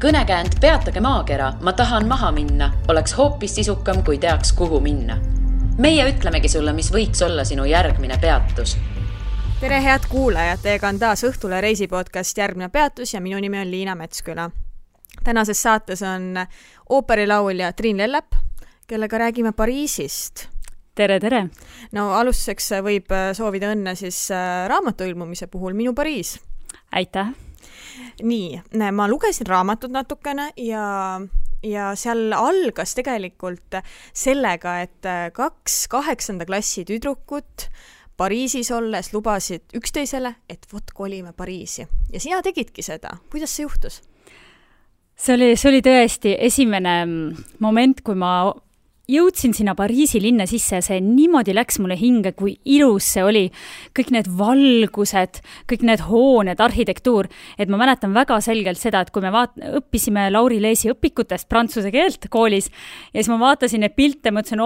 Kõnekäänd Peatage maakera, ma tahan maha minna, oleks hoopis sisukam, kui teaks, kuhu minna. Meie ütlemegi sulle, mis võiks olla sinu järgmine peatus. Tere head kuulajad, teiega on taas Õhtule reisipodcast Järgmine peatus ja minu nimi on Liina Metsküla. Tänases saates on ooperilaulja Triin Lellep, kellega räägime Pariisist. Tere, tere! No alustuseks võib soovida õnne siis raamatu ilmumise puhul Minu Pariis. Aitäh! Nii, ma lugesin raamatut natukene ja seal algas tegelikult sellega, et 2 8. klassi tüdrukut Pariisis olles lubasid üksteisele, et vot kolime Pariisi. Ja sina tegidki seda. Kuidas see juhtus? See oli tõesti esimene moment, kui ma jõudsin sinna Pariisi linna sisse ja see niimoodi läks mulle hinge, kui ilus see oli. Kõik need valgused, kõik need hooned, arhitektuur. Et ma mäletan väga selgelt seda, et kui me õppisime Lauri Leesi õpikutest prantsuse keelt koolis ja siis ma vaatasin need pilte, mõtlesin,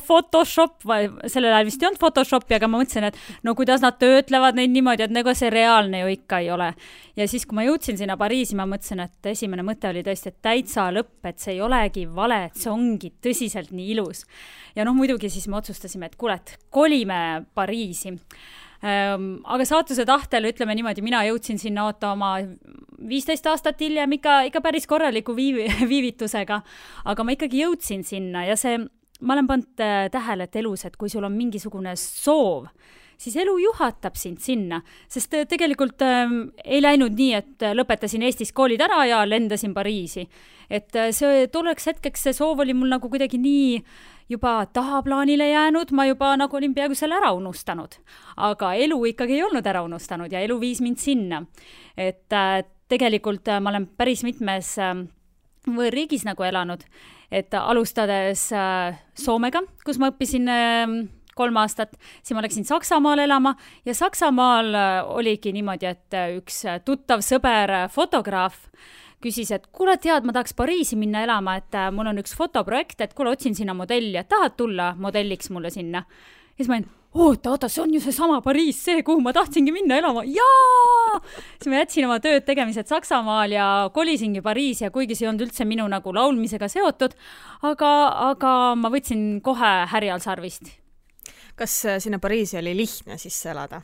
Photoshop, sellel ajal vist ei olnud Photoshopi, aga ma mõtlesin, et no kuidas nad töötlevad neid niimoodi, et nagu see reaalne ju ikka ei ole. Ja siis, kui ma jõudsin sinna Pariisi, ma mõtlesin, et esimene mõte oli tõesti, et täitsa lõpp, et see ei olegi vale, et see ongi tõsiselt nii ilus. Ja muidugi siis me otsustasime, et kuulet, kolime Pariisi. Aga saatuse tahtel, ütleme niimoodi, mina jõudsin sinna oma 15 aastat hiljem ikka päris korraliku viivitusega, aga ma ikkagi jõudsin sinna ja ma olen pannud tähele, et elus, et kui sul on mingisugune soov, siis elu juhatab sind sinna, sest tegelikult ei läinud nii, et lõpetasin Eestis koolid ära ja lendasin Pariisi. Et see tolleks hetkeks see soov oli mul nagu kuidagi nii juba tahaplaanile jäänud, ma juba nagu olin peaaegu selle ära unustanud. Aga elu ikkagi ei olnud ära unustanud ja elu viis mind sinna. Et tegelikult ma olen päris mitmes võõrriigis nagu elanud, et alustades Soomega, kus ma õppisin 3 aastat, siis ma läksin Saksamaal elama ja Saksamaal oligi niimoodi, et üks tuttav sõber fotograaf küsis, et kuule tead, ma tahaks Pariisi minna elama, et mul on üks fotoprojekt, et kuule otsin sinna modelli, et tahad tulla modelliks mulle sinna. Ja siis ma olin, oota, see on ju see sama Pariis, see, kuhu ma tahtsingi minna elama. Jaa! Siis ma jätsin oma tööd tegemised Saksamaal ja kolisingi Pariisi ja kuigi see on üldse minu nagu laulmisega seotud, aga ma võtsin kohe härjal sarvist. Kas sinna Pariisi oli lihtne sisse elada?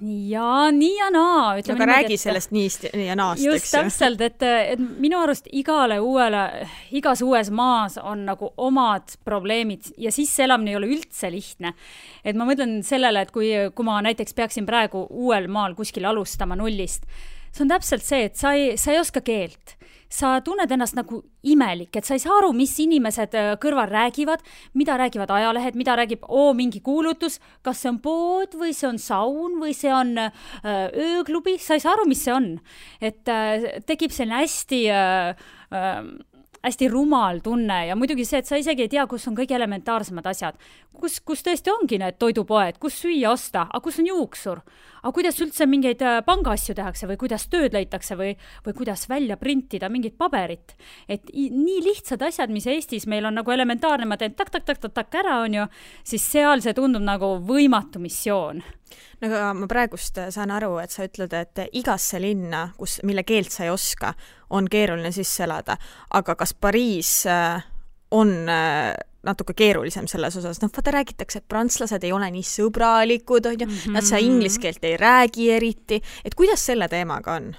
Nii ja naa. Aga räägi sellest niist ja naast, just täpselt, et minu arust igas uues maas on nagu omad probleemid ja sisseelamine ei ole üldse lihtne. Et ma mõtlen sellele, et kui ma näiteks peaksin praegu uuel maal kuskil alustama nullist, see on täpselt see, et sa ei oska keelt. Sa tunned ennast nagu imelik, et sa ei saa aru, mis inimesed kõrval räägivad, mida räägivad ajalehed, mida räägib mingi kuulutus, kas see on pood või see on saun või see on ööklubi, sa ei saa aru, mis see on. Et tekib selline hästi rumal tunne ja muidugi see, et sa isegi ei tea, kus on kõige elementaarsemad asjad. Kus tõesti ongi need toidupoed, kus süüa osta, aga kus on juuksur, aga kuidas üldse mingeid pangaasju tehakse või kuidas tööd leitakse või kuidas välja printida mingit paberit. Et nii lihtsad asjad, mis Eestis meil on nagu elementaarne, ma teen tak ära on ju, siis seal see tundub nagu võimatu missioon. Aga ma praegust saan aru, et sa ütled, et igasse linna, mille keelt sa ei oska, on keeruline sisse elada. Aga kas Pariis on natuke keerulisem selles osas? Vaata räägitakse, et prantslased ei ole nii sõbralikud, nad sa inglise keelt ei räägi eriti. Et kuidas selle teemaga on?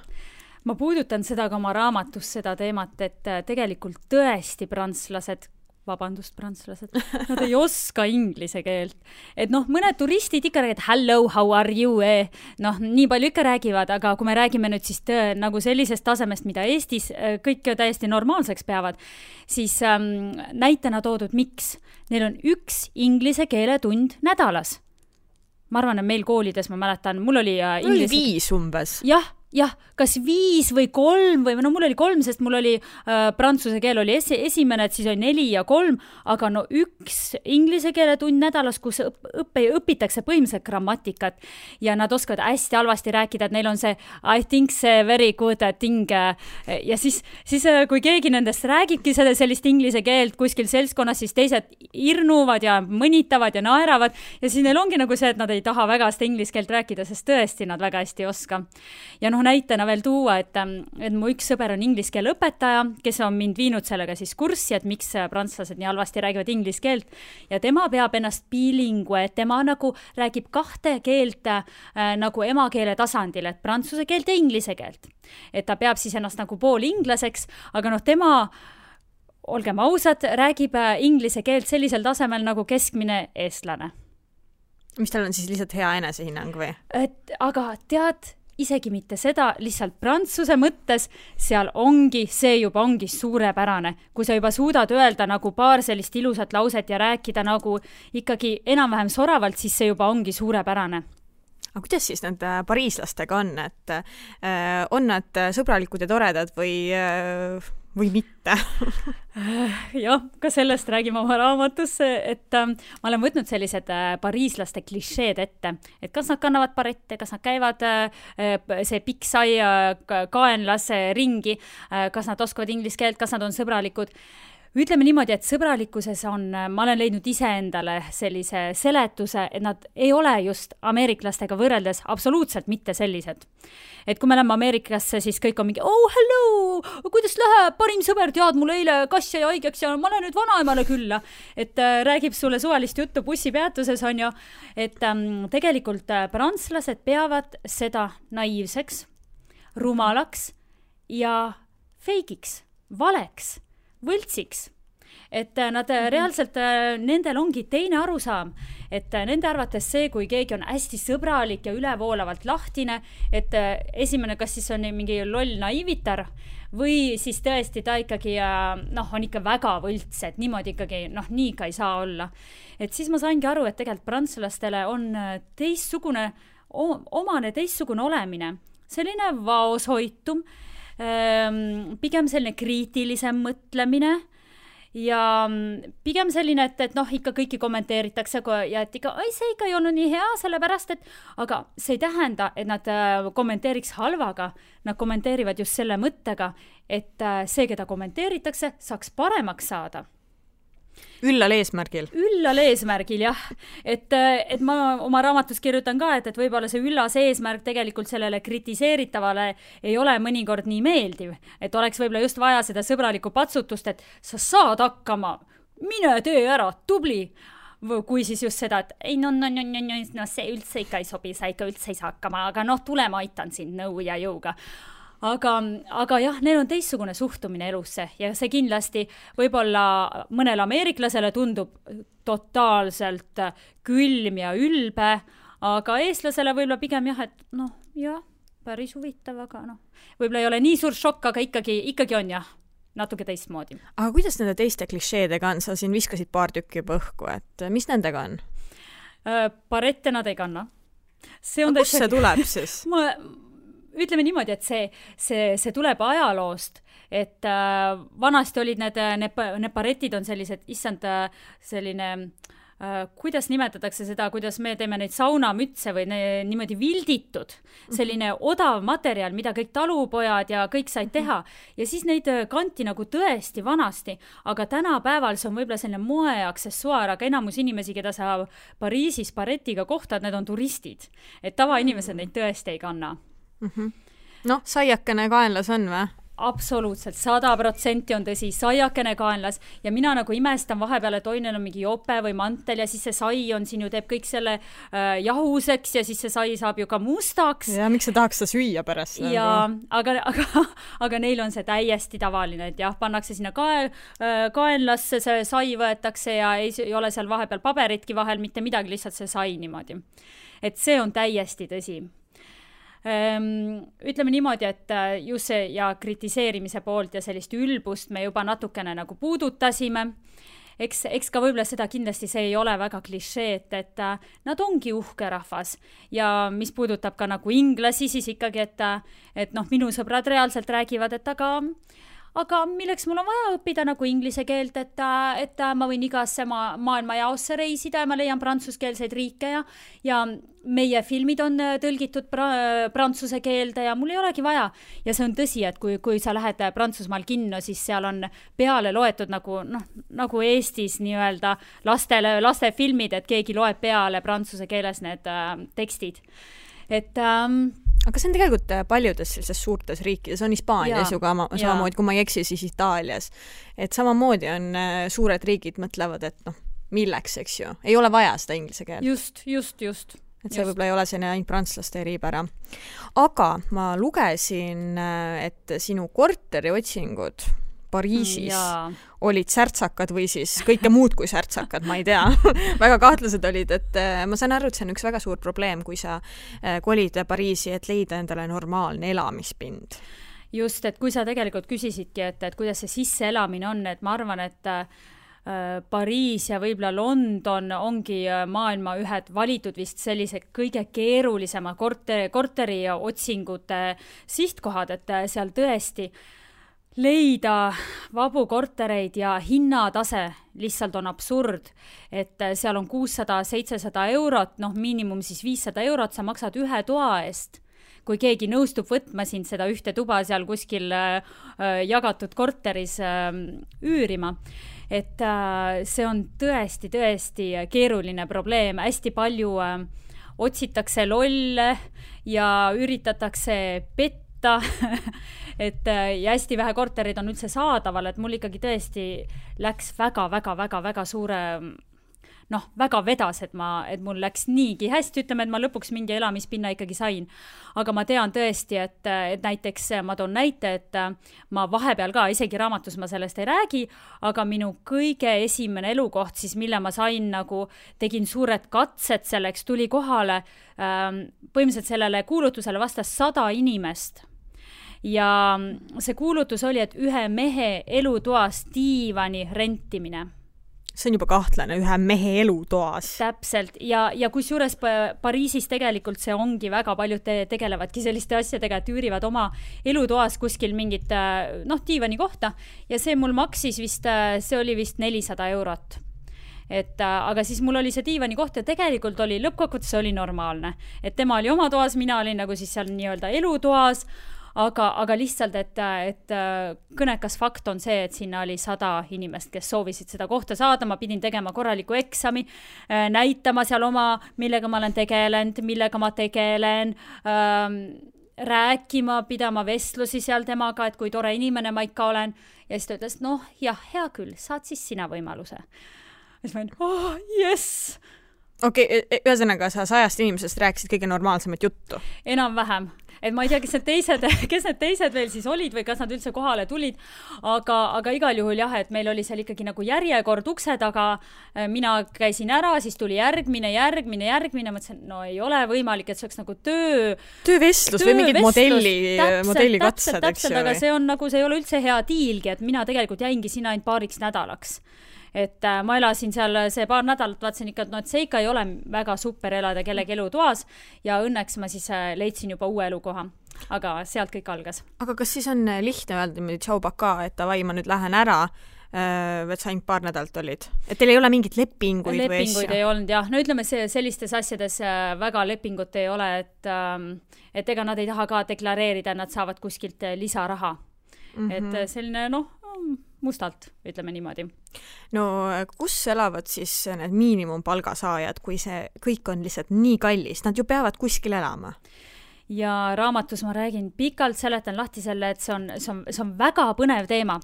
Ma puudutan seda ka oma raamatus seda teemat, et tegelikult tõesti prantslased, nad ei oska inglise keelt. Et mõned turistid ikka räägivad hello, how are you? Nii palju ikka räägivad, aga kui me räägime nüüd siis nagu sellisest tasemest, mida Eestis kõik täiesti normaalseks peavad, siis näitena toodud miks. Neil on 1 inglise keeletund nädalas. Ma arvan, et meil koolides, ma mäletan, mul oli 5 umbes. Jah, kas 5 või 3 või mul oli 3, sest mul oli prantsuse keel oli esimene, et siis oli 4 ja 3, aga 1 inglise keele tund nädalas, kus õpitakse põhimõtteliselt grammatikat ja nad oskavad hästi halvasti rääkida, et neil on see I think see very good thing ja siis kui keegi nendest räägibki sellist inglise keelt kuskil seltskonnas, siis teised irnuvad ja mõnitavad ja naeravad ja siis neil ongi nagu see, et nad ei taha väga seda inglise keelt rääkida, sest tõesti nad väga hästi ei oska. Ja näitena veel tuua, et mu üks sõber on inglise keele õpetaja, kes on mind viinud sellega siis kurssi, et miks prantslased nii halvasti räägivad inglise keelt ja tema peab ennast bilingue, et tema nagu räägib 2 keelt nagu emakeele tasandil, et prantsuse keelt ja inglise keelt. Et ta peab siis ennast nagu pool inglaseks, aga tema, olgem ausad, räägib inglise keelt sellisel tasemel nagu keskmine eestlane. Mis tal on siis lihtsalt hea enesehinnang või? Aga tead, isegi mitte seda, lihtsalt prantsuse mõttes see juba ongi suurepärane. Kui sa juba suudad öelda nagu paar sellist ilusat lauset ja rääkida nagu ikkagi enam-vähem soravalt, siis see juba ongi suurepärane. Aga kuidas siis need pariislastega on? Et on nad sõbralikud ja toredad või mitte? Jah, ka sellest räägime oma raamatus, et ma olen võtnud sellised pariislaste klišeed ette, et kas nad kannavad barette, kas nad käivad see pikk sai kaenlas ringi, kas nad oskavad inglise keelt, kas nad on sõbralikud. Ütleme niimoodi, et sõbralikkuses ma olen leidnud iseendale sellise seletuse, et nad ei ole just ameeriklastega võrreldes absoluutselt mitte sellised. Et kui me läheme Ameerikasse, siis kõik on mingi, hello, kuidas läheb, parim sõber, tead, mul eile kass jäi haigeks ja ma lähen nüüd vanaemale külla. Et räägib sulle suvalist juttu bussipeatuses, on ju, et tegelikult prantslased peavad seda naiivseks, rumalaks ja feigiks, valeks, võltsiks. Et nad reaalselt, nendel ongi teine arusaam, et nende arvates see, kui keegi on hästi sõbralik ja ülevoolavalt lahtine, et esimene, kas siis on mingi loll naiivitar või siis tõesti ta ikkagi on ikka väga võlts, et niimoodi ikkagi, nii ka ei saa olla. Et siis ma saingi aru, et tegelikult prantslastele on omane teistsugune olemine, selline vaoshoitum, pigem selline kriitilisem mõtlemine ja pigem selline, et ikka kõiki kommenteeritakse ja et ikka, see ikka ei olnud nii hea, sellepärast, aga see ei tähenda, et nad kommenteeriks halvaga, nad kommenteerivad just selle mõttega, et see, keda kommenteeritakse, saaks paremaks saada. Üllal eesmärgil, jah. Et ma oma raamatus kirjutan ka, et võib-olla see üllas eesmärk tegelikult sellele kritiseeritavale ei ole mõnikord nii meeldiv. Et oleks võib-olla just vaja seda sõbralikku patsutust, et sa saad hakkama, mine tee ära, tubli. Kui siis just seda, et ei, see üldse ikka ei sobi, sa ikka üldse ei saa hakkama, aga tule ma aitan sind nõu ja jõuga. Aga jah, neil on teistsugune suhtumine elusse ja see kindlasti võib-olla mõnele ameeriklasele tundub totaalselt külm ja ülbe, aga eestlasele võib-olla pigem jah, et päris huvitav, aga võib-olla ei ole nii suur šokk, aga ikkagi on jah, natuke teistmoodi. Aga kuidas nende teiste klišeedega on? Sa siin viskasid paar tükki juba õhku, et mis nendega on? Barette nad ei kanna. Kust see tuleb siis? Ütleme niimoodi, et see tuleb ajaloost, et vanasti olid need baretid on sellised, selline, kuidas nimetatakse seda, kuidas me teeme neid saunamütse või niimoodi vilditud, selline odav materjal, mida kõik talupojad ja kõik said teha. Ja siis neid kanti nagu tõesti vanasti, aga tänapäeval see on võib-olla selline moeaksessuaar, aga enamus inimesi, keda sa Pariisis baretiga kohtad, need on turistid. Et tavainimesed neid tõesti ei kanna. Saiakene kaenlas on või? Absoluutselt, 100% on tõsi, saiakene kaenlas ja mina nagu imestan vahepeal, et neil on mingi jope või mantel ja siis see sai on siin ju teeb kõik selle jahuseks ja siis see sai saab ju ka mustaks. Ja miks sa tahaks seda süüa pärast? Ja, aga neil on see täiesti tavaline, et jah, pannakse sinna kaenlasse, see sai võetakse ja ei ole seal vahepeal paberitki vahel, mitte midagi, lihtsalt see sai niimoodi. Et see on täiesti tõsi. Ütleme niimoodi, et just see ja kritiseerimise poolt ja sellist ülbust me juba natukene nagu puudutasime. Eks ka võib-olla seda kindlasti see ei ole väga klišee, et nad ongi uhke rahvas ja mis puudutab ka nagu inglasi, siis ikkagi, et minu sõbrad reaalselt räägivad, et aga milleks mul on vaja õppida nagu inglise keelt, et ma võin igasse maailma jaosse reisida ja ma leian prantsuskeelseid riike ja meie filmid on tõlgitud prantsuse keelde ja mul ei olegi vaja. Ja see on tõsi, et kui sa lähed Prantsusmaal kinno, siis seal on peale loetud nagu Eestis nii-öelda lastefilmid, et keegi loeb peale prantsuse keeles need tekstid. Et aga see on tegelikult paljudes sellises suurtes riikides, on Hispaanias ju ka samamoodi, kui ma ei eksi, siis Itaalias. Et samamoodi on suured riigid mõtlevad, et milleks, eks ju. Ei ole vaja seda inglise keelt. Just. Et see võib-olla ei ole selline ainult prantslaste eripära. Aga ma lugesin, et sinu korteriotsingud Pariisis olid särtsakad või siis kõike muud kui särtsakad, ma ei tea. Väga kahtlased olid, et ma saan aru, et see on üks väga suur probleem, kui sa kolid Pariisi, et leida endale normaalne elamispind. Just, et kui sa tegelikult küsisidki, et kuidas see sisseelamine on, et ma arvan, et Pariis ja võib-olla London ongi maailma ühed valitud vist sellised kõige keerulisema korteri otsingute sihtkohad, et seal tõesti leida vabu kortereid ja hinnatase lihtsalt on absurd, et seal on 600-700 eurot, miinimum siis 500 eurot, sa maksad ühe toa eest. Kui keegi nõustub võtma sind seda ühte tuba seal kuskil jagatud korteris üürima. Et see on tõesti keeruline probleem, hästi palju otsitakse lolle ja üritatakse petta, et ja hästi vähe korterid on üldse saadaval, et mul ikkagi tõesti läks väga suure, väga vedas, et mul läks niigi hästi, ütleme, et ma lõpuks mingi elamispinna ikkagi sain. Aga ma tean tõesti, et näiteks ma toon näite, et ma vahepeal ka, isegi raamatus ma sellest ei räägi, aga minu kõige esimene elukoht, siis mille ma sain tegin suured katsed selleks, tuli kohale, põhimõtteliselt sellele kuulutusele vastas 100 inimest. Ja see kuulutus oli, et ühe mehe elutoas diivani rentimine. See on juba kahtlane, ühe mehe elutoas. Täpselt, ja kusjuures Pariisis tegelikult see ongi väga paljud tegelevadki selliste asjadega, et üürivad oma elutoas kuskil mingit diivani kohta ja see mul maksis vist, see oli vist 400 eurot. Aga siis mul oli see diivani koht ja tegelikult oli lõppkokkuvõttes oli normaalne, et tema oli oma toas, mina olin nagu siis seal nii-öelda elutoas, aga lihtsalt, et kõnekas fakt on see, et sinna oli 100 inimest, kes soovisid seda kohta saada, ma pidin tegema korraliku eksami, näitama seal millega ma olen tegelenud, millega ma tegelen, rääkima, pidama vestlusi seal temaga, et kui tore inimene ma ikka olen, ja siis ta ütles, hea küll, saad siis sina võimaluse. Ja siis ma olen, yes! Okei, ühesõnaga sa 100 inimesest rääkisid kõige normaalsemat juttu? Enam-vähem. Et ma ei tea, kes need teised veel siis olid või kas nad üldse kohale tulid, aga igal juhul jah, et meil oli seal ikkagi nagu järjekord ukse taga, mina käisin ära, siis tuli järgmine, mõtlesin, ei ole võimalik, et see oleks nagu töövestlus või mingid modellikatsed, eks ju. Aga see on nagu, see ei ole üldse hea diilgi, et mina tegelikult jäingi sinna ainult paariks nädalaks. Et ma elasin seal see paar nädalat, vaatsin ikka, et see ikka ei ole väga super elada kellegi elutoas ja õnneks ma siis leidsin juba uue elukoha, aga sealt kõik algas. Aga kas siis on lihtne öelda tšau baka, et davai, ma nüüd lähen ära, et sa ainult paar nädalt olid? Et teil ei ole mingit lepinguid või asja? Ei olnud, jah. No ütleme, sellistes asjades väga lepingut ei ole, et ega nad ei taha ka deklareerida, nad saavad kuskilt lisaraha. Et selline, mustalt, ütleme niimoodi. No kus elavad siis need miinimumpalgasaajad, kui see kõik on lihtsalt nii kallis? Nad ju peavad kuskil elama. Ja raamatus ma räägin pikalt, seletan lahti selle, et see on väga põnev teema.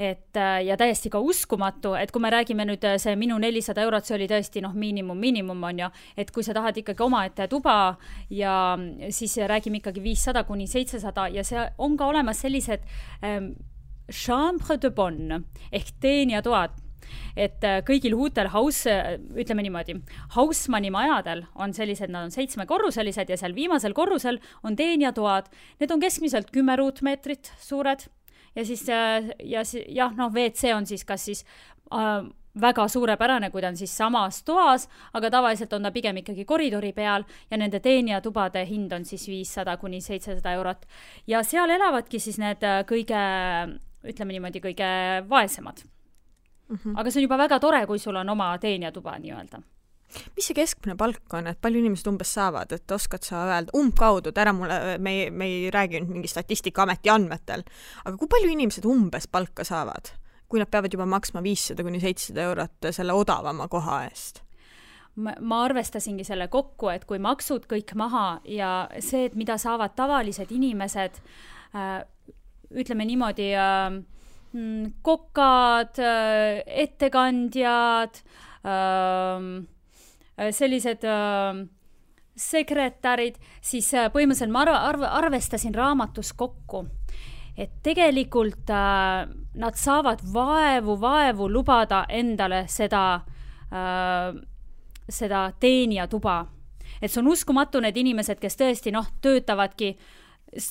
Ja täiesti ka uskumatu, et kui me räägime nüüd see minu 400 eurot, see oli tõesti miinimum on ju, et kui sa tahad ikkagi omaette tuba ja siis räägime ikkagi 500-700 ja see on ka olemas sellised chambre de bonne ehk teenijatoad, et kõigil huutel ütleme niimoodi, Hausmanni majadel on sellised, nad on 7-korruselised ja seal viimasel korrusel on teenijatoad, need on keskmiselt 10 ruutmeetrit suured ja siis WC on siis kas siis väga suurepärane, kui ta on siis samas toas, aga tavaliselt on ta pigem ikkagi koridori peal ja nende teenijatubade hind on siis 500-700 eurot. Ja seal elavadki siis need ütleme niimoodi, kõige vaesemad. Aga see on juba väga tore, kui sul on oma teenijatuba nii-öelda. Mis see keskmine palk on, et palju inimesed umbes saavad, et oskad sa öelda umbkaudu, et ära mulle, me ei räägi nüüd mingi Statistikaameti andmetel, aga kui palju inimesed umbes palka saavad, kui nad peavad juba maksma 500-700 eurot selle odavama koha eest? ma arvestasingi selle kokku, et kui maksud kõik maha ja see, et mida saavad tavalised inimesed, ütleme niimoodi, kokad, ettekandjad, sellised sekretärid, siis põhimõtteliselt ma arvestasin raamatus kokku, et tegelikult nad saavad vaevu lubada endale seda teenijatuba. Et see on uskumatu need inimesed, kes tõesti töötavadki,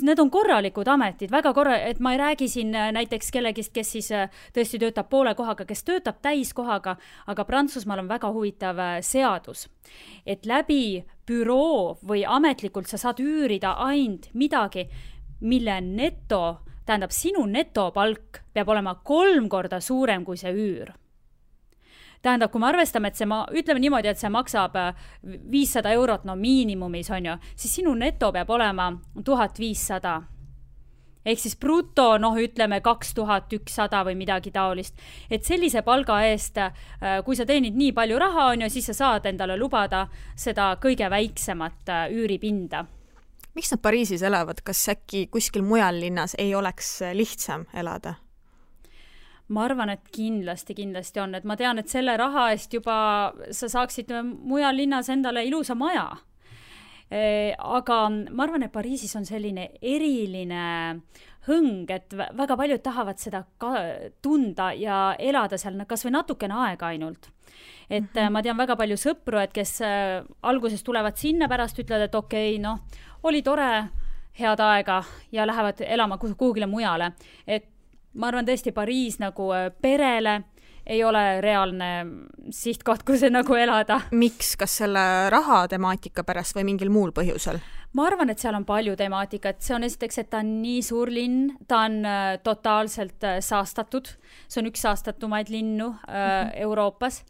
need on korralikud ametid, et ma ei räägi siin näiteks kellegist, kes siis tõesti töötab poole kohaga, kes töötab täiskohaga, aga Prantsusmaal on väga huvitav seadus, et läbi büroo või ametlikult sa saad üürida ainult midagi, mille tähendab sinu netopalk peab olema 3 korda suurem kui see üür. Tähendab, kui me arvestame, et ütleme niimoodi, et see maksab 500 eurot, miinimumis on ju, siis sinu neto peab olema 1500. Ehk siis bruto, ütleme 2100 või midagi taolist. Et sellise palga eest, kui sa teenid nii palju raha on ju, siis sa saad endale lubada seda kõige väiksemat üüripinda. Miks nad Pariisis elavad? Kas äkki kuskil mujal linnas ei oleks lihtsam elada? Ma arvan, et kindlasti on, et ma tean, et selle raha eest juba sa saaksid mujal linnas endale ilusa maja. Aga ma arvan, et Pariisis on selline eriline hõng, et väga paljud tahavad seda tunda ja elada seal kas või natukene aega ainult. Et ma tean väga palju sõpru, et kes alguses tulevad sinna, pärast ütlevad, et okei, oli tore, head aega ja lähevad elama kuhugile mujale. Et ma arvan tõesti Pariis nagu perele ei ole reaalne sihtkoht, kus elada. Miks? Kas selle raha temaatika pärast või mingil muul põhjusel? Ma arvan, et seal on palju temaatikat. See on esiteks, et ta on nii suur linn, ta on totaalselt saastatud. See on üks saastatumaid linnu Euroopas.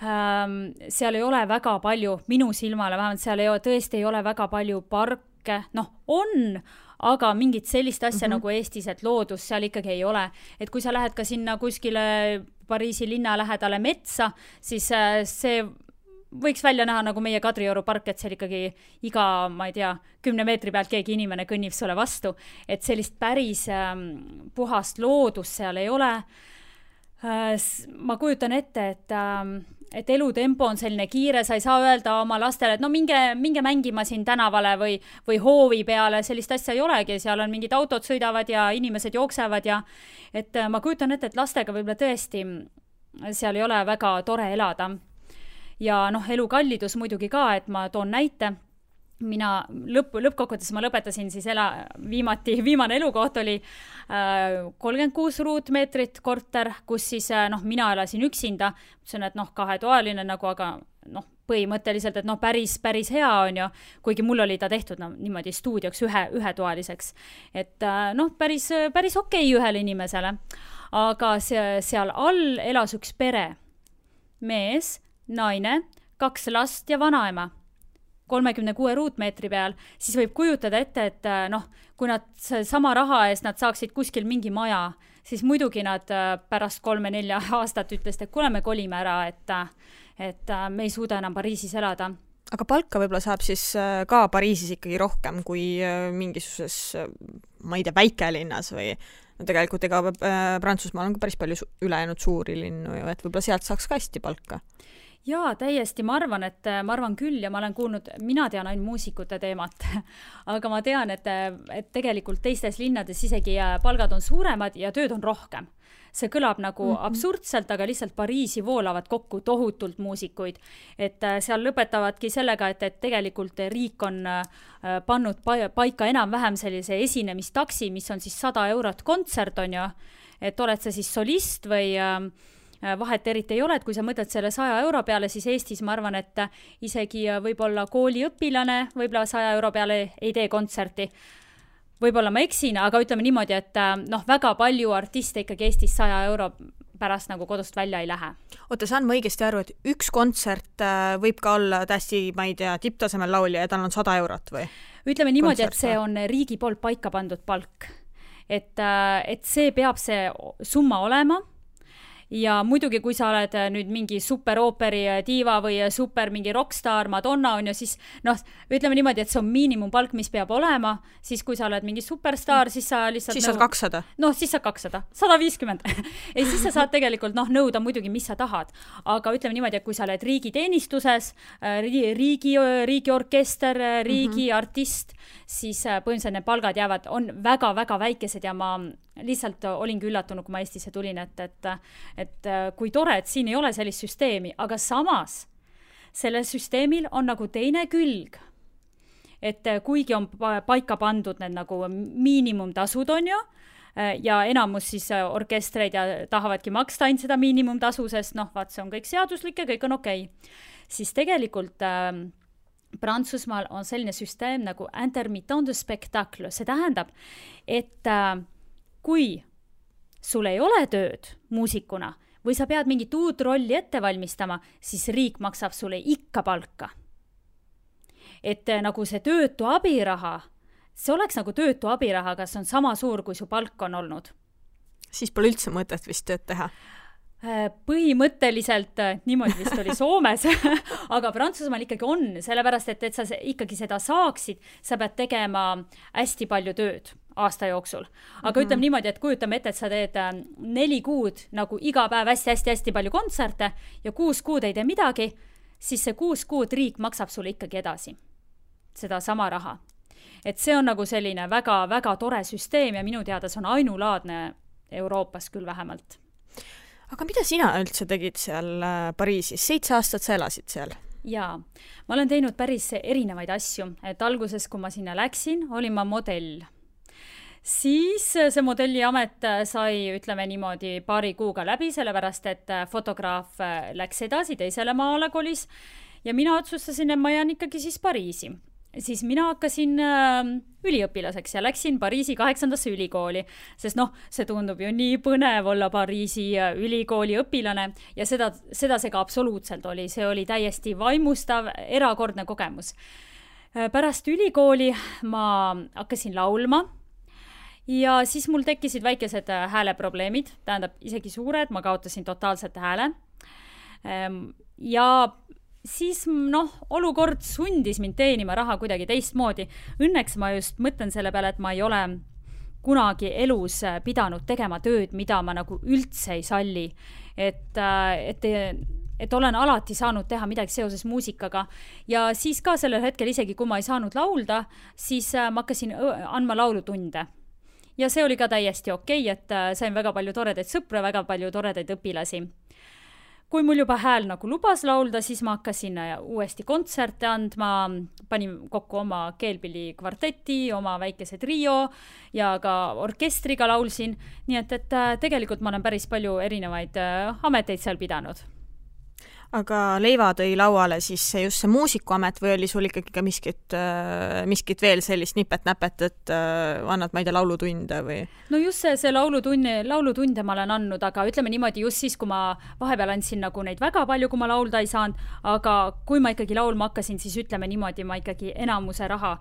Seal ei ole väga palju, minu silmale vähemalt, seal tõesti ei ole väga palju parke. On, aga mingit sellist asja nagu Eestis, et loodus seal ikkagi ei ole. Et kui sa lähed ka sinna kuskile Pariisi linna lähedale metsa, siis see võiks välja näha nagu meie Kadrioru park, et seal ikkagi iga, ma ei tea, 10 meetri pealt keegi inimene kõnnib sulle vastu. Et sellist päris puhast loodust seal ei ole. Ma kujutan ette, et elutempo on selline kiire, sa ei saa öelda oma lastele, et minge mängima siin tänavale või hoovi peale, sellist asja ei olegi, seal on mingid autod sõidavad ja inimesed jooksevad ja et ma kujutan ette, et lastega võib-olla tõesti seal ei ole väga tore elada. Ja elukallidus muidugi ka, et ma toon näite. Mina lõppkokkuvõttes ma lõpetasin siis viimane elukoht oli 36 ruutmeetrit korter, kus siis mina elasin üksinda, mõtlesin, et 2-toaline aga põhimõtteliselt, et päris hea on ju, kuigi mul oli ta tehtud niimoodi stuudioks ühetoaliseks, et päris okei ühele inimesele, aga seal all elas üks pere, mees, naine, 2 last ja vanaema 36 ruutmeetri peal, siis võib kujutada ette, et kui nad sama raha eest nad saaksid kuskil mingi maja, siis muidugi nad pärast 3-4 aastat ütlesid, et kuule, me kolime ära, et me ei suuda enam Pariisis elada. Aga palka võib-olla saab siis ka Pariisis ikkagi rohkem kui mingisuses, ma ei tea, väikelinnas või tegelikult Prantsusmaal on ka päris palju ülejäänud suuri linnu ju, et võib-olla sealt saaks ka hästi palka. Jaa, täiesti, ma arvan küll ja ma olen kuulnud, mina tean ainult muusikute teemat, aga ma tean, et tegelikult teistes linnades isegi palgad on suuremad ja tööd on rohkem. See kõlab nagu absurdselt, aga lihtsalt Pariisi voolavad kokku tohutult muusikuid, et seal lõpetavadki sellega, et tegelikult riik on pannud paika enam-vähem sellise esinemistaksi, mis on siis 100 eurot kontsert on ju, et oled sa siis solist või vahet eriti ei ole, et kui sa mõtled selle 100 euro peale, siis Eestis ma arvan, et isegi võib-olla kooliõpilane võib-olla 100 euro peale ei tee kontserti. Võib-olla ma eksin, aga ütleme niimoodi, et väga palju artiste ikkagi Eestis 100 euro pärast nagu kodust välja ei lähe. Oota, saan ma õigesti aru, et üks kontsert võib ka olla täiesti, ma ei tea, tipptasemel laulja ja tal on 100 eurot või? Ütleme niimoodi, et see on riigi poolt paika pandud palk. Et see peab see summa olema. ja muidugi, kui sa oled nüüd mingi superooperi diiva või super mingi rockstar Madonna on ju, siis ütleme niimoodi, et see on miinimumpalk, mis peab olema, siis kui sa oled mingi superstar, siis sa lihtsalt siis saad 200. Siis saad 200, 150. Ei, siis sa saad tegelikult nõuda muidugi, mis sa tahad. Aga ütleme niimoodi, et kui sa oled riigiteenistuses, riigi orkester, riigi artist, siis põhimõtteliselt need palgad on väga-väga väikesed ja ma lihtsalt olingi üllatunud, kui ma Eestisse tulin, et kui tore, et siin ei ole sellist süsteemi, aga samas sellel süsteemil on nagu teine külg. Et kuigi on paika pandud need nagu miinimumtasud on ju, ja enamus siis orkestreid ja tahavadki maksta ainult seda miinimumtasu, sest vaat see on kõik seaduslik ja kõik on okei. Siis tegelikult Prantsusmaal on selline süsteem nagu intermittent de spectacle. See tähendab, et kui sul ei ole tööd muusikuna või sa pead mingit uut rolli ette valmistama, siis riik maksab sulle ikka palka. Et nagu see töötu abiraha, see oleks nagu töötu abiraha, kas on sama suur, kui su palk on olnud. Siis pole üldse mõtet vist tööd teha. Põhimõtteliselt niimoodi vist oli Soomes, aga Prantsusmaal ikkagi on, sellepärast, et sa ikkagi seda saaksid, sa pead tegema hästi palju tööd aasta jooksul. Aga ütleme niimoodi, et kujutame ette, et sa teed 4 kuud nagu iga päev hästi-hästi palju kontserte ja 6 kuud ei tee midagi, siis see 6 kuud riik maksab sulle ikkagi edasi seda sama raha. Et see on nagu selline väga-väga tore süsteem ja minu teada see on ainulaadne Euroopas küll vähemalt. Aga mida sina üldse tegid seal Pariisis? 7 aastat sa elasid seal? Jaa, ma olen teinud päris erinevaid asju. Et alguses, kui ma sinna läksin, olin ma modell. Siis see modelliamet sai, ütleme niimoodi, paari kuuga läbi, sellepärast, et fotograaf läks edasi, teisele maale kolis ja mina otsustasin, et ma jään ikkagi siis Pariisi. Siis mina hakkasin üliõpilaseks ja läksin Pariisi 8. ülikooli, sest see tundub ju nii põnev olla Pariisi ülikooli õpilane ja seda see ka absoluutselt oli. See oli täiesti vaimustav, erakordne kogemus. Pärast ülikooli ma hakkasin laulma ja siis mul tekkisid väikesed hääleprobleemid, tähendab isegi suured, ma kaotasin totaalselt hääle ja siis olukord sundis mind teenima raha kuidagi teistmoodi. Õnneks ma just mõtlen selle peale, et ma ei ole kunagi elus pidanud tegema tööd, mida ma nagu üldse ei salli. Et olen alati saanud teha midagi seoses muusikaga ja siis ka sellel hetkel isegi, kui ma ei saanud laulda, siis ma hakkasin andma laulutunde. Ja see oli ka täiesti okei, et sain väga palju toredaid sõpru, väga palju toredaid õpilasi. Kui mul juba hääl nagu lubas laulda, siis ma hakkasin uuesti kontserte andma, panin kokku oma keelpilli kvarteti, oma väikese trio ja ka orkestriga laulsin. Nii et tegelikult ma olen päris palju erinevaid ameteid seal pidanud. Aga leiva tõi lauale siis just see muusikuamet või oli sul ikkagi ka miskit veel sellist nipet-näpet, et annad, ma ei tea, laulutunde või? No just see laulutunde ma olen andnud, aga ütleme niimoodi just siis, kui ma vahepeal andsin nagu neid väga palju, kui ma laulda ei saanud, aga kui ma ikkagi laulma hakkasin, siis ütleme niimoodi, ma ikkagi enamuse raha,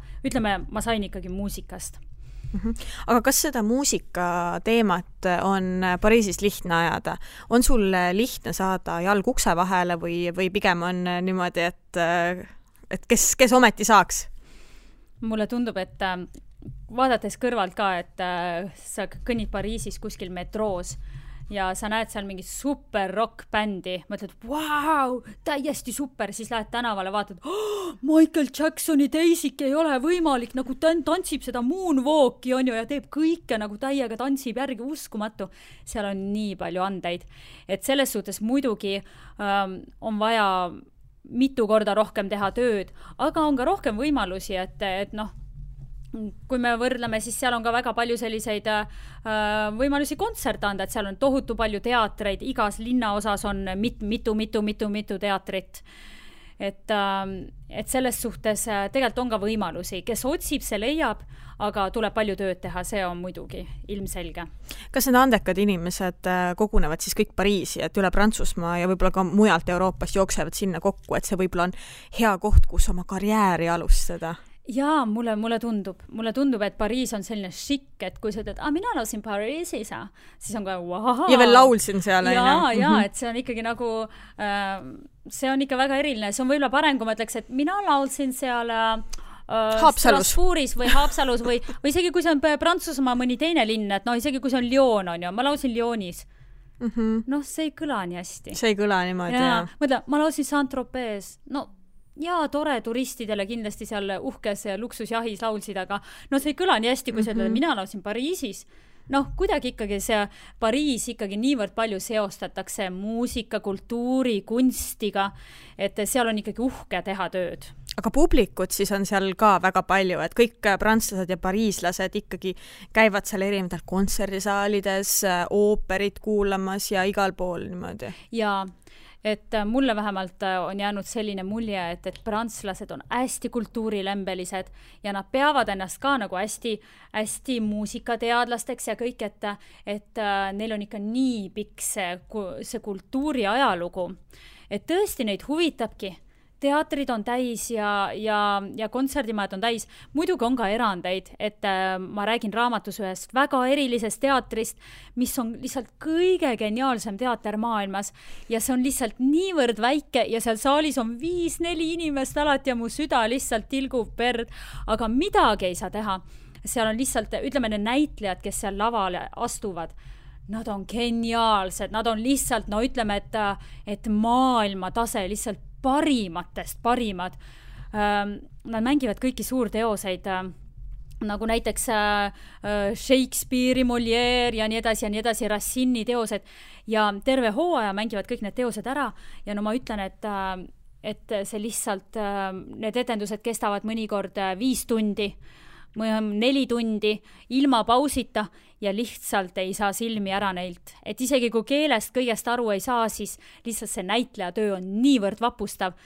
ma sain ikkagi muusikast. Aga kas seda muusika teemat on Pariisis lihtne ajada? On sul lihtne saada jalg ukse vahele või pigem on niimoodi, et kes ometi saaks? Mulle tundub, et vaadates kõrvalt ka, et sa kõnnid Pariisis kuskil metroos ja sa näed seal mingi super rock-bändi, mõtled, vau, täiesti super, siis lähed tänavale, vaatad, Michael Jacksoni teisik ei ole võimalik, nagu tantsib seda moonwalki on ju ja teeb kõike nagu täiega tantsib järgi, uskumatu. Seal on nii palju andeid. Et selles suhtes muidugi on vaja mitu korda rohkem teha tööd, aga on ka rohkem võimalusi, et kui me võrdleme, siis seal on ka väga palju selliseid võimalusi kontserte anda, et seal on tohutu palju teatreid, igas linnaosas on mitu teatrit. Et selles suhtes tegelikult on ka võimalusi, kes otsib, see leiab, aga tuleb palju tööd teha, see on muidugi ilmselge. Kas need andekad inimesed kogunevad siis kõik Pariisi, et üle Prantsusmaa ja võib-olla ka mujalt Euroopast jooksevad sinna kokku, et see võib-olla on hea koht, kus oma karjääri alustada? Jaa, mulle tundub, et Pariis on selline šikk, et kui sa ütled, mina laulsin Pariisis, siis on ka wow. Ja veel laulsin seal. Jaa, et see on ikkagi nagu, see on ikka väga eriline. See on võib-olla parem, kui ma ütleks, et mina laulsin seal Strasbourgis või Haapsalus või isegi kui see on Prantsusmaa mõni teine linn, et isegi kui see on Lyon, on ju, ma laulsin Lyonis. See ei kõla nii hästi. See ei kõla niimoodi, jah. Mõtla, ma laulsin Saint-Tropez. Jaa, tore turistidele kindlasti seal uhkes luksusjahis laulsid, aga see ei kõla nii hästi, kui sa ütled, mina laulsin Pariisis. Kuidagi ikkagi see Pariis ikkagi niivõrd palju seostatakse muusika, kultuuri, kunstiga, et seal on ikkagi uhke teha tööd. Aga publikut siis on seal ka väga palju, et kõik prantslased ja pariislased ikkagi käivad seal erinevatel kontserdisaalides, ooperit kuulamas ja igal pool niimoodi. Jaa. Et mulle vähemalt on jäänud selline mulje, et prantslased on hästi kultuurilembelised ja nad peavad ennast ka nagu hästi muusikateadlasteks ja kõik, et neil on ikka nii pikk see kultuuri ajalugu, et tõesti neid huvitabki. Teatrid on täis ja kontserdimajad on täis. Muidugi on ka erandeid, et ma räägin raamatus ühest väga erilisest teatrist, mis on lihtsalt kõige geniaalsem teater maailmas ja see on lihtsalt niivõrd väike ja seal saalis on 5-4 inimest alati ja mu süda lihtsalt tilgub verd, aga midagi ei saa teha. Seal on lihtsalt, ütleme, need näitlejad, kes seal lavale astuvad, nad on geniaalsed, nad on lihtsalt, ütleme, et maailma tase lihtsalt parimatest parimad. Nad mängivad kõiki suurteoseid, nagu näiteks Shakespeare'i, Molière ja nii edasi, Racini teosed ja terve hooaja mängivad kõik need teosed ära ja ma ütlen, et see lihtsalt, need etendused kestavad mõnikord 5 tundi, 4 tundi ilma pausita ja lihtsalt ei saa silmi ära neilt. Et isegi kui keelest kõigest aru ei saa, siis lihtsalt see näitleja töö on niivõrd vapustav.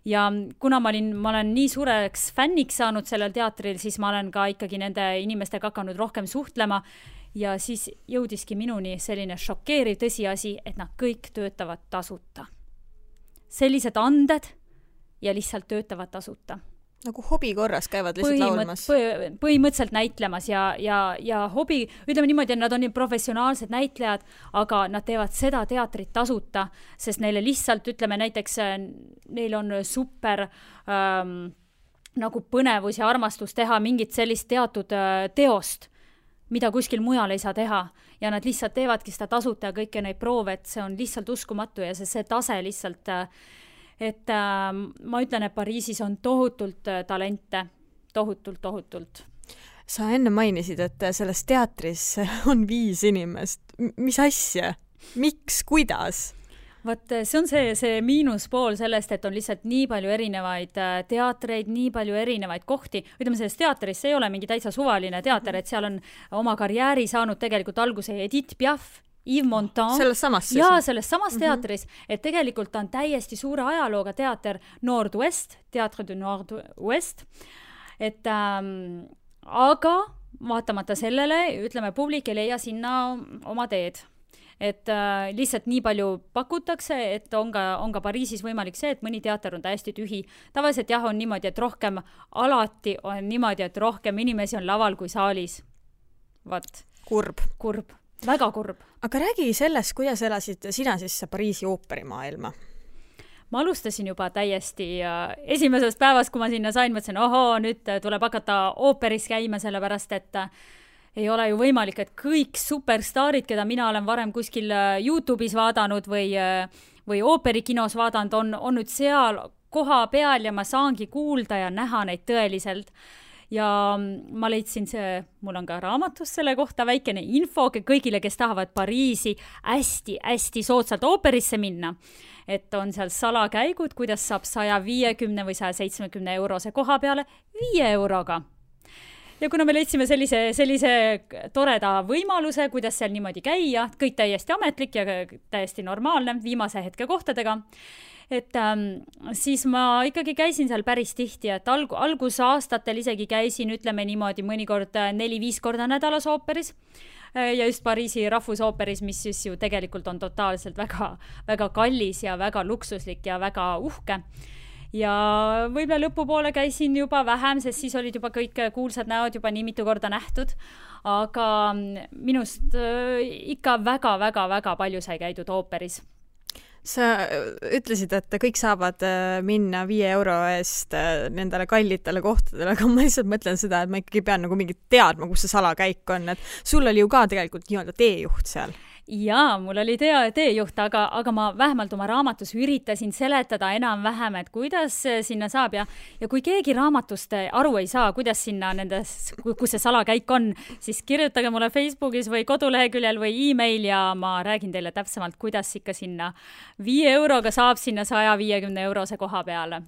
Ja kuna ma olen nii suureks fänniks saanud sellel teatril, siis ma olen ka ikkagi nende inimestega hakanud rohkem suhtlema ja siis jõudiski minuni selline šokeeriv tõsiasi, et nad kõik töötavad tasuta. Sellised anded ja lihtsalt töötavad tasuta. Nagu hobi korras käivad lihtsalt laulmas. Põhimõtteliselt näitlemas ja hobi, ütleme niimoodi, et nad on nii professionaalsed näitlejad, aga nad teevad seda teatrit tasuta, sest neile lihtsalt, ütleme näiteks, neil on super nagu põnevus ja armastus teha mingit sellist teatud teost, mida kuskil mujal ei saa teha ja nad lihtsalt teevadki seda tasuta ja kõike neid proove, et see on lihtsalt uskumatu ja see tase lihtsalt et ma ütlen, et Pariisis on tohutult talente, tohutult. Sa enne mainisid, et selles teatris on 5 inimest. Mis asja? Miks? Kuidas? Vaat see on see miinuspool sellest, et on lihtsalt nii palju erinevaid teatreid, nii palju erinevaid kohti. Ütleme, selles teatris see ei ole mingi täitsa suvaline teater, et seal on oma karjääri saanud tegelikult alguse Edith Piaf, Yves Montand. Selles samas siis? Jaa, selles samas teatris, et tegelikult on täiesti suure ajalooga teater Nord-Ouest, Teatre de Nord-Ouest, et aga vaatamata sellele, ütleme, publik ei leia sinna oma teed. Et lihtsalt nii palju pakutakse, et on ka Pariisis võimalik see, et mõni teater on täiesti tühi. Tavaliselt jah, on niimoodi, et alati on niimoodi, et rohkem inimesi on laval kui saalis. Vaat. Kurb. Väga kurb. Aga räägi sellest, kuidas elasid sina siis Pariisi ooperimaailma? Ma alustasin juba täiesti esimesest päevast, kui ma sinna sain, mõtlesin, nüüd tuleb hakata ooperis käima, sellepärast, et ei ole ju võimalik, et kõik superstaarid, keda mina olen varem kuskil YouTube'is vaadanud või ooperikinos vaadanud, on nüüd seal koha peal ja ma saangi kuulda ja näha neid tõeliselt. Ja ma leidsin mul on ka raamatus selle kohta väikene info kõigile, kes tahavad Pariisi hästi soodsalt ooperisse minna. Et on seal salakäigud, kuidas saab 150 või 170 eurose koha peale 5 euroga. Ja kuna me leidsime sellise toreda võimaluse, kuidas seal niimoodi käia, kõik täiesti ametlik ja täiesti normaalne viimase hetke kohtadega, et siis ma ikkagi käisin seal päris tihti, et algusaastatel isegi käisin, ütleme niimoodi, mõnikord 4-5 korda nädalas ooperis ja just Pariisi rahvusooperis, mis siis ju tegelikult on totaalselt väga, väga kallis ja väga luksuslik ja väga uhke. ja võib-olla lõpupoole käisin juba vähem, sest siis olid juba kõik kuulsad näod juba nii mitu korda nähtud, aga minust ikka väga palju sai käidud ooperis. Sa ütlesid, et kõik saavad minna 5 euro eest nendele kallitele kohtadele, aga ma lihtsalt mõtlen seda, et ma ikkagi pean nagu mingit teadma, kus see salakäik on, et sul oli ju ka tegelikult nii-öelda teejuht seal. Jaa, mul oli teejuht, aga ma vähemalt oma raamatus üritasin seletada enam-vähem, et kuidas sinna saab ja kui keegi raamatust aru ei saa, kuidas sinna kus see salakäik on, siis kirjutage mulle Facebookis või koduleheküljel või e-mail ja ma räägin teile täpsemalt, kuidas ikka sinna 5 euroga saab sinna 150 eurose koha peale.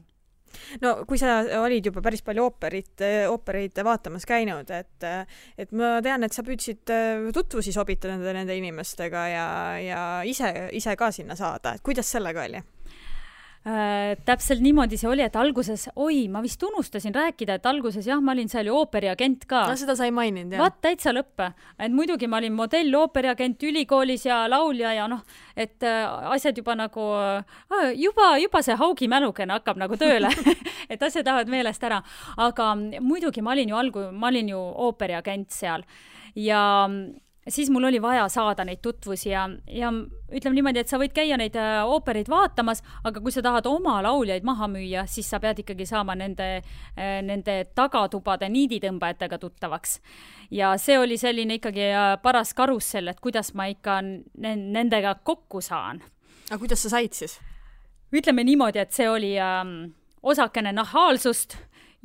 No kui sa olid juba päris palju oopereid vaatamas käinud, et ma tean, et sa püüdsid tutvusi sobitada nende inimestega ja ise ka sinna saada, et kuidas sellega oli? Täpselt niimoodi see oli, et alguses, ma vist unustasin rääkida, et alguses jah, ma olin seal ju ooperiagent ka. No seda sai maininud, jah. Vaat täitsa lõppe. Et muidugi ma olin modell, ooperiagent ülikoolis ja laulja ja et asjad juba nagu, juba see haugi mälukene hakkab nagu tööle, et asjad lähevad meelest ära. Aga muidugi ma olin ju ooperiagent seal ja siis mul oli vaja saada neid tutvusi ja ütleme niimoodi, et sa võid käia neid oopereid vaatamas, aga kui sa tahad oma lauljaid maha müüa, siis sa pead ikkagi saama nende tagatubade niiditõmbajatega tuttavaks. Ja see oli selline ikkagi paras karussell, et kuidas ma ikka nendega kokku saan. Aga kuidas sa said siis? Ütleme niimoodi, et see oli osakene nahaalsust,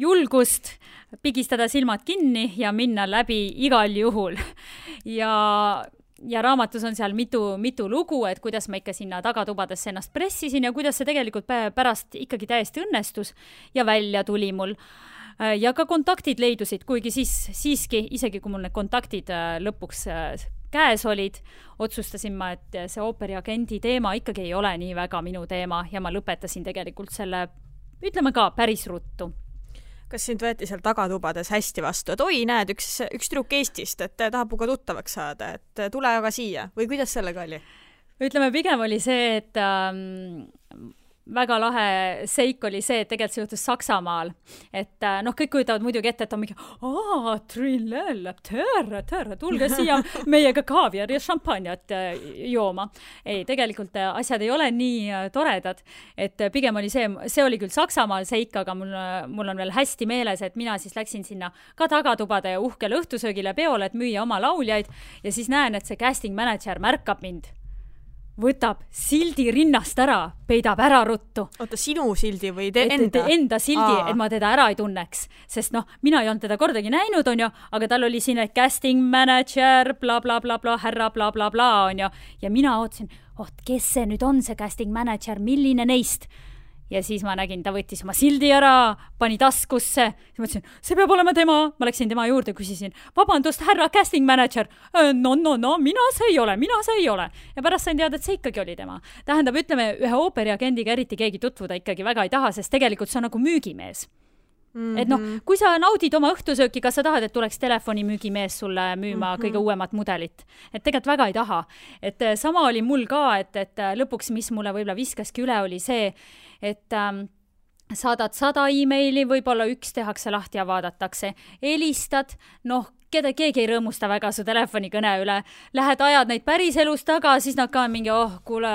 julgust, pigistada silmad kinni ja minna läbi igal juhul. Ja raamatus on seal mitu lugu, et kuidas ma ikka sinna tagatubadesse ennast pressisin ja kuidas see tegelikult pärast ikkagi täiesti õnnestus ja välja tuli mul. Ja ka kontaktid leidusid, kuigi siiski, isegi kui mul need kontaktid lõpuks käes olid, otsustasin ma, et see ooperiagendi teema ikkagi ei ole nii väga minu teema ja ma lõpetasin tegelikult selle, ütleme ka, päris ruttu. Kas sind võeti seal tagatubades hästi vastu, et näed, üks trükk Eestist, et tahab ka tuttavaks saada, et tule aga siia või kuidas sellega oli? Ütleme, pigem oli see, et väga lahe seik oli see, et tegelikult see juhtus Saksamaal. Et kõik kujutavad muidugi ette, et on mingi tere, tulge siia meiega kaaviar ja šampanjat jooma. Ei, tegelikult asjad ei ole nii toredad. Et pigem oli see oli küll Saksamaal seik, aga mul on veel hästi meeles, et mina siis läksin sinna ka tagatubade uhkele õhtusöögile peole, et müüa oma lauljaid ja siis näen, et see casting manager märkab mind. Võtab sildi rinnast ära, peidab ära ruttu. Oota, sinu sildi või enda? Enda sildi, et ma teda ära ei tunneks. Sest mina ei olnud teda kordagi näinud, on ju, aga tal oli siin casting manager, bla, bla, bla, bla, härra, bla, bla, bla, on ju. Ja mina ootsin, kes see nüüd on see casting manager, milline neist? Ja siis ma nägin, ta võttis oma sildi ära, pani taskusse. Ja mõtlesin, see peab olema tema. Ma läksin tema juurde, küsisin, vabandust, härra casting manager. No, mina see ei ole. Ja pärast sain teada, et see ikkagi oli tema. Tähendab, ütleme, ühe ooperiagendiga eriti keegi tutvuda ikkagi väga ei taha, sest tegelikult see on nagu müügimees. Et kui sa naudid oma õhtusööki, kas sa tahad, et tuleks telefonimüügimees sulle müüma kõige uuemat mudelit? Et tegelikult väga ei taha. Et sama oli mul ka, et lõpuks, mis mulle võib-olla viskaski üle, oli see, et saadad 100 e-maili, võib-olla üks tehakse lahti ja vaadatakse. Helistad, keegi ei rõõmusta väga su telefonikõne üle. Lähed ajad neid päris elus taga, siis nad ka mingi, kuule,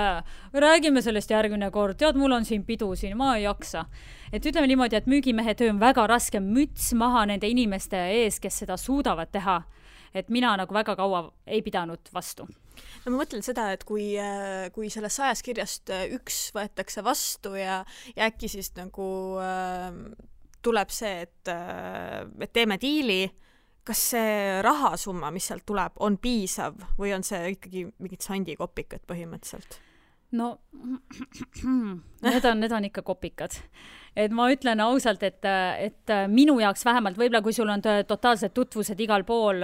räägime sellest järgmine kord. Tead, mul on siin pidu siin, ma ei jaksa. Et ütleme niimoodi, et müügimehe töö on väga raske, müts maha nende inimeste ees, kes seda suudavad teha. Et mina nagu väga kaua ei pidanud vastu. No ma mõtlen seda, et kui sellest 100 kirjast üks võetakse vastu ja äkki siis nagu tuleb see, et teeme diili, kas see rahasumma, mis sealt tuleb, on piisav või on see ikkagi mingid sandikopikad põhimõtteliselt? No, need on ikka kopikad. Et ma ütlen ausalt, et minu jaoks vähemalt, võib-olla kui sul on totaalsed tutvused igal pool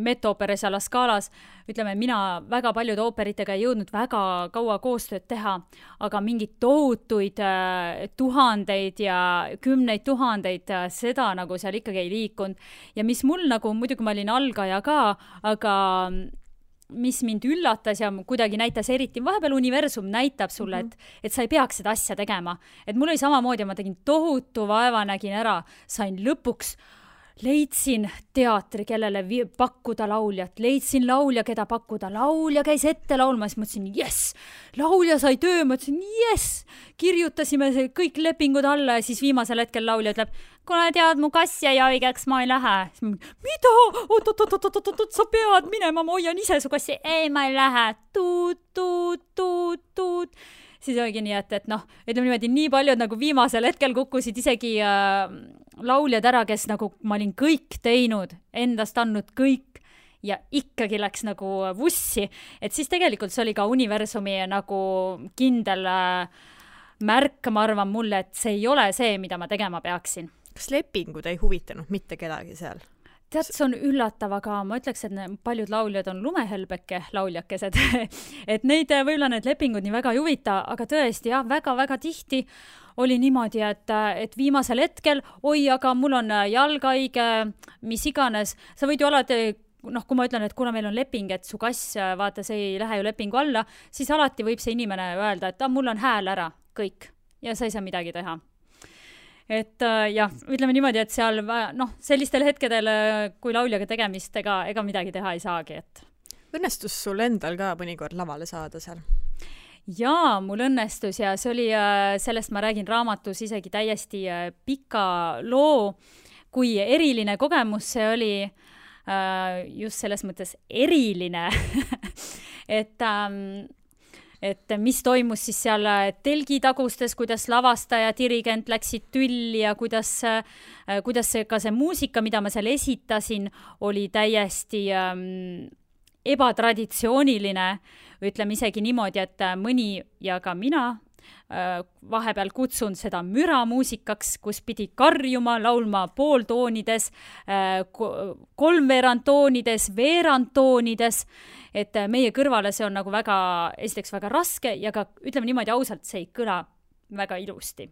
Met-ooperes ja La Scalas, ütleme, mina väga paljude ooperitega ei jõudnud väga kaua koostööd teha, aga mingid tohutuid tuhandeid ja 10 000, seda nagu seal ikkagi ei liikunud. Ja mis mul nagu, muidugi ma olin algaja ka, aga mis mind üllatas ja kuidagi näitas eriti, vahepeal universum näitab sulle, et sa ei peaks seda asja tegema. Et mul oli samamoodi, ma tegin tohutu vaeva, nägin ära, sain lõpuks, leidsin teatri, kellele pakkuda lauljat, leidsin laulja, keda pakkuda, laulja käis ette laulma, siis mõtlesin, yes, laulja sai töö, mõtlesin, yes, kirjutasime kõik lepingud alla ja siis viimasel hetkel laulja ütleb, kuna tead, mu kass jäi haigeks, ma ei lähe. Mida? Oot, sa pead minema, ma hoian ise su kassi. Ei, ma ei lähe. Tuut. Siis oligi nii, et noh, ütleme niimoodi, nii paljud nagu viimasel hetkel kukkusid isegi lauljad ära, kes nagu ma olin kõik teinud, endast andnud kõik ja ikkagi läks nagu vussi. Et siis tegelikult see oli ka universumi nagu kindel märk, ma arvan mulle, et see ei ole see, mida ma tegema peaksin. Kas lepingud ei huvitanud mitte kedagi seal? Tead, see on üllatav, aga ma ütleks, et paljud lauljad on lumehelbeke lauljakesed. Et neid võib-olla need lepingud nii väga ei huvita, aga tõesti, jah, väga-väga tihti oli niimoodi, et viimasel hetkel, oi, aga mul on jalgaige, mis iganes, sa võid ju alati, noh, kui ma ütlen, et kuna meil on leping, et su kass, vaata, see ei lähe ju lepingu alla, siis alati võib see inimene öelda, et mul on hääl ära, kõik, ja sa ei saa midagi teha. Et jah, ütleme niimoodi, et seal noh, sellistel hetkedel, kui lauljaga tegemist, ega midagi teha ei saagi. Et. Õnnestus sul endal ka mõnikord lavale saada seal? Jaa, mul õnnestus ja see oli, sellest ma räägin raamatus isegi täiesti pika loo, kui eriline kogemus see oli, just selles mõttes eriline, et mis toimus siis seal telgitagustes, kuidas lavastaja, dirigent läksid tülli ja kuidas ka see muusika, mida ma seal esitasin, oli täiesti ebatraditsiooniline, ütleme isegi niimoodi, et mõni ja ka mina vahepeal kutsun seda müramuusikaks, kus pidi karjuma, laulma pooltoonides, kolmveerandtoonides, veerandtoonides, et meie kõrvale see on nagu esiteks väga raske ja ka ütleme niimoodi ausalt, see ei kõla väga ilusti.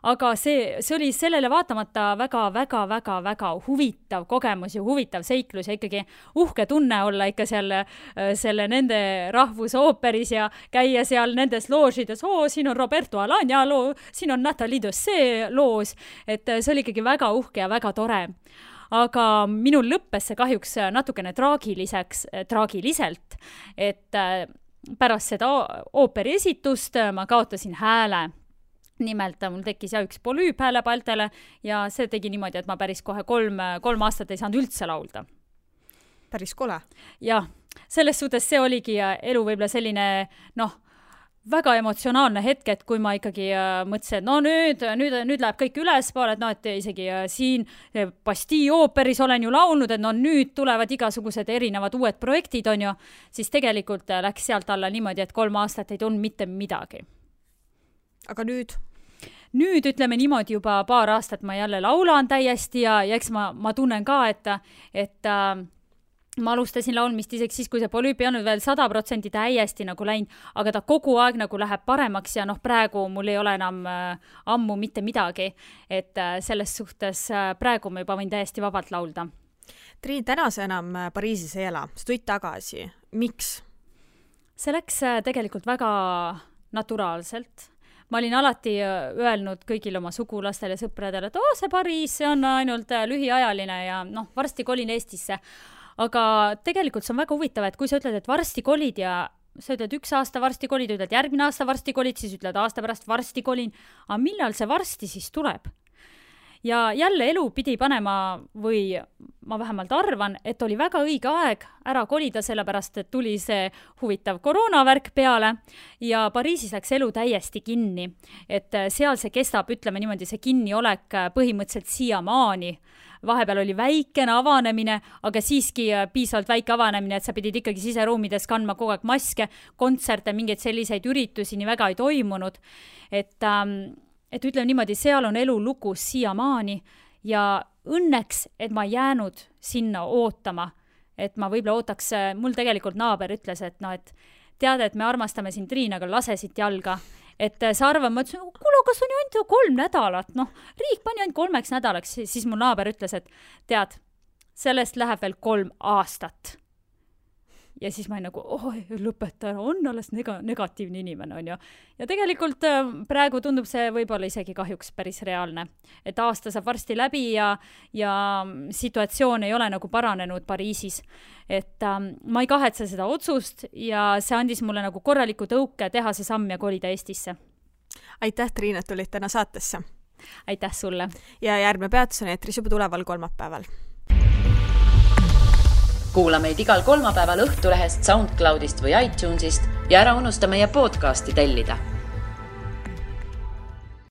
Aga see oli sellele vaatamata väga huvitav kogemus ja huvitav seiklus ja ikkagi uhke tunne olla ikka selle nende rahvusooperis ja käia seal nendes loožides, siin on Roberto Alagna loo, siin on Nathalie Dosset loos, et see oli ikkagi väga uhke ja väga tore. Aga minul lõppes see kahjuks natukene traagiliselt, et pärast seda ooperi esitust ma kaotasin hääle. Nimelt mul tekkis üks polüüp häälepaltele ja see tegi niimoodi, et ma päris kohe 3 aastat ei saanud üldse laulda. Päris kole. Jah, selles suhtes see oligi elu võib-olla selline, väga emotsionaalne hetk, et kui ma ikkagi mõtlesin, et nüüd läheb kõik ülespoole, et isegi siin Bastille ooperis olen ju laulnud, et nüüd tulevad igasugused erinevad uued projektid, on ju, siis tegelikult läks sealt alla niimoodi, et 3 aastat ei tulnud mitte midagi. Aga nüüd? Nüüd ütleme niimoodi juba 2 aastat ma jälle laulan täiesti ja eks ma tunnen ka, et ma alustasin laulmist isegi siis, kui see polüüp ei olnud veel 100% täiesti nagu läinud, aga ta kogu aeg nagu läheb paremaks ja praegu mul ei ole enam ammu mitte midagi, et selles suhtes praegu ma juba võin täiesti vabalt laulda. Triin, täna sa enam Pariisis ei ela, sa tulid tagasi. Miks? See läks tegelikult väga naturaalselt. Ma olin alati öelnud kõigil oma sugulastele ja sõpradele, et see Pariis, see on ainult lühiajaline ja varsti kolin Eestisse. Aga tegelikult see on väga huvitav, et kui sa ütled, et varsti kolid ja sa ütled 1 aasta varsti kolid, ütled järgmine aasta varsti kolid, siis ütled aasta pärast varsti kolin. Aga millal see varsti siis tuleb? Ja jälle elu pidi panema või ma vähemalt arvan, et oli väga õige aeg ära kolida, sellepärast et tuli see huvitav koroonavärk peale ja Pariisis läks elu täiesti kinni. Et seal see kestab, ütleme niimoodi, see kinniolek põhimõtteliselt siiamaani. Vahepeal oli väikene avanemine, aga siiski piisavalt väike avanemine, et sa pidid ikkagi siseruumides kandma kogu aeg maske, kontserte, mingeid selliseid üritusi nii väga ei toimunud. Et ütleme niimoodi, seal on elu lukus siiamaani ja õnneks, et ma jäänud sinna ootama, et ma võib-olla ootaks, mul tegelikult naaber ütles, et tead, et me armastame sind, Triin, aga lase siit jalga. Et sa arvan, ma ütlesin, kuule, kas on ju ainult 3 nädalat, riik pani ainult 3 nädalaks, siis mu naaber ütles, et tead, sellest läheb veel 3 aastat. ja siis ma olin nagu, lõpeta ära, on alles negatiivne inimene, on ju. Ja tegelikult praegu tundub see võib-olla isegi kahjuks päris reaalne. Et aasta saab varsti läbi ja situatsioon ei ole nagu paranenud Pariisis. Et ma ei kahetse seda otsust ja see andis mulle nagu korraliku tõuke teha see samm ja kolida Eestisse. Aitäh, Triin, et tulid täna saatesse. Aitäh sulle. Ja järgmine peatus on eetris juba tuleval kolmapäeval. Kuula meid igal kolmapäeval Õhtulehest, SoundCloudist või iTunesist ja ära unusta meie podcasti tellida.